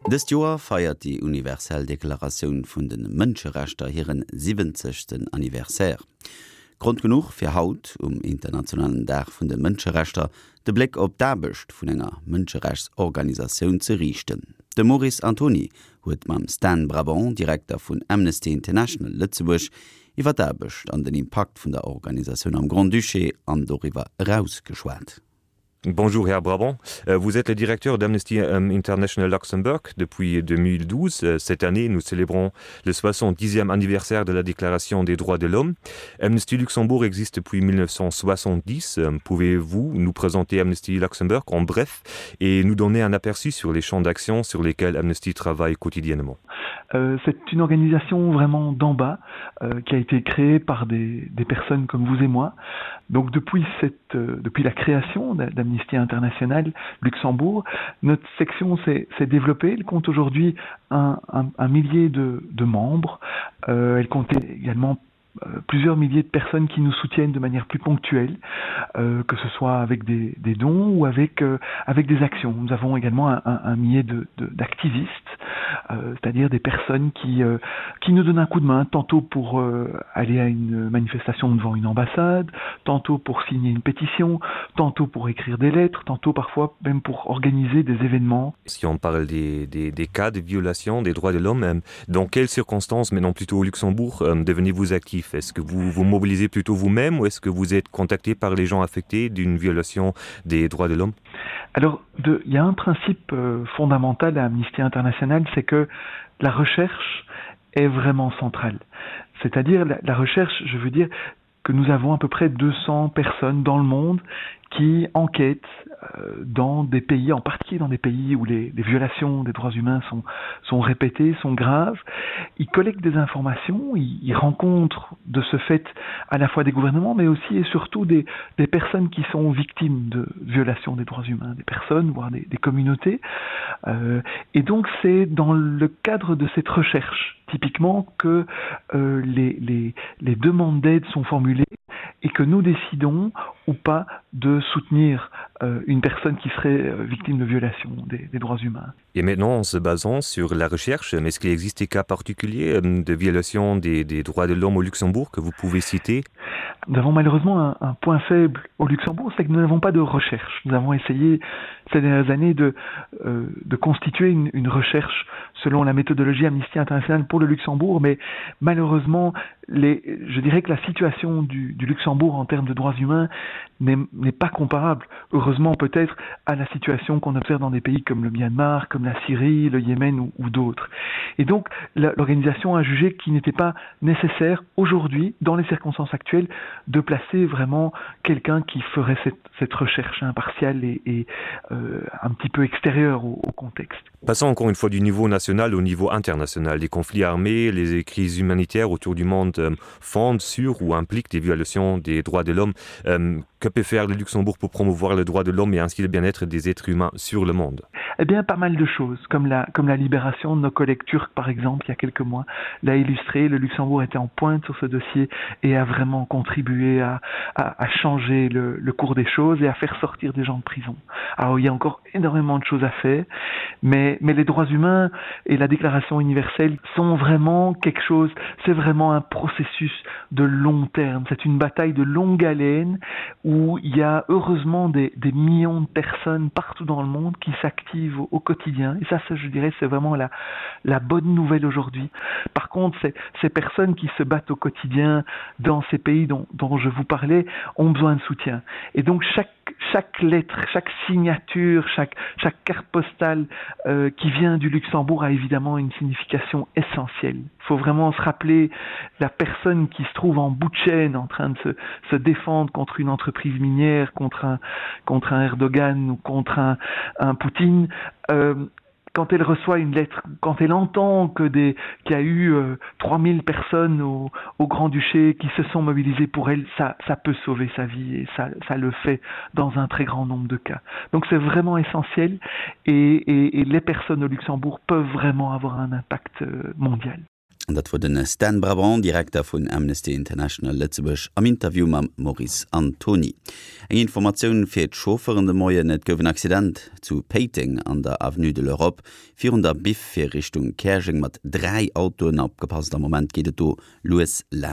Dëst Joer feiert déi universell Deklaratioun vun de Mënscherechter hiren siwwenzegsten Anniversaire. Grond genuch fir haut, um internationalen Dag vun de Mënscherechter, de Bléck op d'Aarbecht vun enger Mënscherechtsorganisatioun ze riichten. De Maurice Antoni huet mam Stan Brabant, Direkter vun Amnesty International Lëtzebuerg, iwwer d'Aarbecht an den Impakt vun der Organisatioun am Grand-Duché an doriwwer eraus geschwat. Bonjour Herr Brabant, euh, vous êtes le directeur d'Amnesty euh, International Luxembourg depuis 2012. Euh, cette année, nous célébrons le 70e anniversaire de la Déclaration des droits de l'homme. Amnesty Luxembourg existe depuis 1970. Pouvez-vous nous présenter Amnesty Luxembourg en bref et nous donner un aperçu sur les champs d'action sur lesquels Amnesty travaille quotidiennement euh, C'est une organisation vraiment d'en bas euh, qui a été créée par des, des personnes comme vous et moi. Donc depuis, cette, euh, depuis la création d'Amnesty International Luxembourg, notre section s'est développée. Elle compte aujourd'hui un, un, un millier de, de membres. Euh, elle comptait également Euh, plusieurs milliers de personnes qui nous soutiennent de manière plus ponctuelle, euh, que ce soit avec des, des dons ou avec, euh, avec des actions. Nous avons également un, un, un millier d'activistes, euh, c'est-à-dire des personnes qui, euh, qui nous donnent un coup de main, tantôt pour euh, aller à une manifestation devant une ambassade, tantôt pour signer une pétition, tantôt pour écrire des lettres, tantôt parfois même pour organiser des événements. Si on parle des, des, des cas de violation des droits de l'homme, euh, dans quelles circonstances, mais non plutôt au Luxembourg, euh, devenez-vous actif Est-ce que vous vous mobilisez plutôt vous-même ou est-ce que vous êtes contacté par les gens affectés d'une violation des droits de l'homme Alors de, il y a un principe euh, fondamental à Amnesty International, c'est que la recherche est vraiment centrale. C'est-à-dire la, la recherche, je veux dire que nous avons à peu près 200 personnes dans le monde qui enquêtent euh, dans des pays, en particulier dans des pays où les, les violations des droits humains sont, sont répétées, sont graves. Ils collectent des informations, ils, ils rencontrent de ce fait à la fois des gouvernements, mais aussi et surtout des, des personnes qui sont victimes de violations des droits humains, des personnes, voire des, des communautés. Euh, et donc c'est dans le cadre de cette recherche typiquement que euh, les, les, les demandes d'aide sont formulées et que nous décidons ou pas de soutenir euh, une personne qui serait euh, victime de violation des, des droits humains. Et maintenant, en se basant sur la recherche, est-ce qu'il existe des cas particuliers euh, de violation des, des droits de l'homme au Luxembourg que vous pouvez citer Nous avons malheureusement un, un point faible au Luxembourg, c'est que nous n'avons pas de recherche. Nous avons essayé ces dernières années de, euh, de constituer une, une recherche selon la méthodologie Amnesty International pour le Luxembourg, mais malheureusement, les, je dirais que la situation du, du Luxembourg en termes de droits humains n'est pas comparable, heureusement peut-être, à la situation qu'on observe dans des pays comme le Myanmar, comme la Syrie, le Yémen ou, ou d'autres. Et donc l'organisation a jugé qu'il n'était pas nécessaire aujourd'hui, dans les circonstances actuelles, de placer vraiment quelqu'un qui ferait cette, cette recherche impartiale et, et euh, un petit peu extérieure au, au contexte. Passons encore une fois du niveau national au niveau international. Les conflits armés, les crises humanitaires autour du monde euh, fondent sur ou impliquent des violations des droits de l'homme. Euh, que peut faire le Luxembourg pour promouvoir le droit de l'homme et ainsi le bien-être des êtres humains sur le monde Eh bien pas mal de choses, comme la, comme la libération de nos collègues turcs par exemple il y a quelques mois l'a illustré. Le Luxembourg était en pointe sur ce dossier et a vraiment contribué à, à, à changer le, le cours des choses et à faire sortir des gens de prison. Alors il y a encore énormément de choses à faire, mais, mais les droits humains et la déclaration universelle sont vraiment quelque chose, c'est vraiment un processus de long terme, c'est une bataille de longue haleine où il y a heureusement des, des millions de personnes partout dans le monde qui s'activent au, au quotidien. Et ça, ça je dirais, c'est vraiment la, la bonne nouvelle aujourd'hui. Par contre, ces, ces personnes qui se battent au quotidien dans ces pays dont, dont je vous parlais ont besoin de soutien. Et donc chaque, chaque lettre, chaque signature, chaque, chaque carte postale euh, qui vient du Luxembourg a évidemment une signification essentielle. Il faut vraiment se rappeler la personne qui se trouve en bout de chaîne en train de se, se défendre contre une entreprise minière, contre un, contre un Erdogan ou contre un, un Poutine. Euh, quand elle reçoit une lettre, quand elle entend que des qu'il y a eu euh, 3000 personnes au, au Grand-Duché qui se sont mobilisées pour elle, ça, ça peut sauver sa vie et ça, ça le fait dans un très grand nombre de cas. Donc c'est vraiment essentiel et, et, et les personnes au Luxembourg peuvent vraiment avoir un impact euh, mondial. An dat wor de Stan Brabant, Direkter vun Amnesty International Lëtzebuerg am Interview mam Maurice Antony. Eng Informatioun fir d'Chauffeuren de Moien, Et gouf en Accident zu Péiteng an der Avenue de l'Europe virun der Biff fir Richtung Käerjeng mat 3 Autoen. Opgepasst, am Moment geet et do lues laanscht.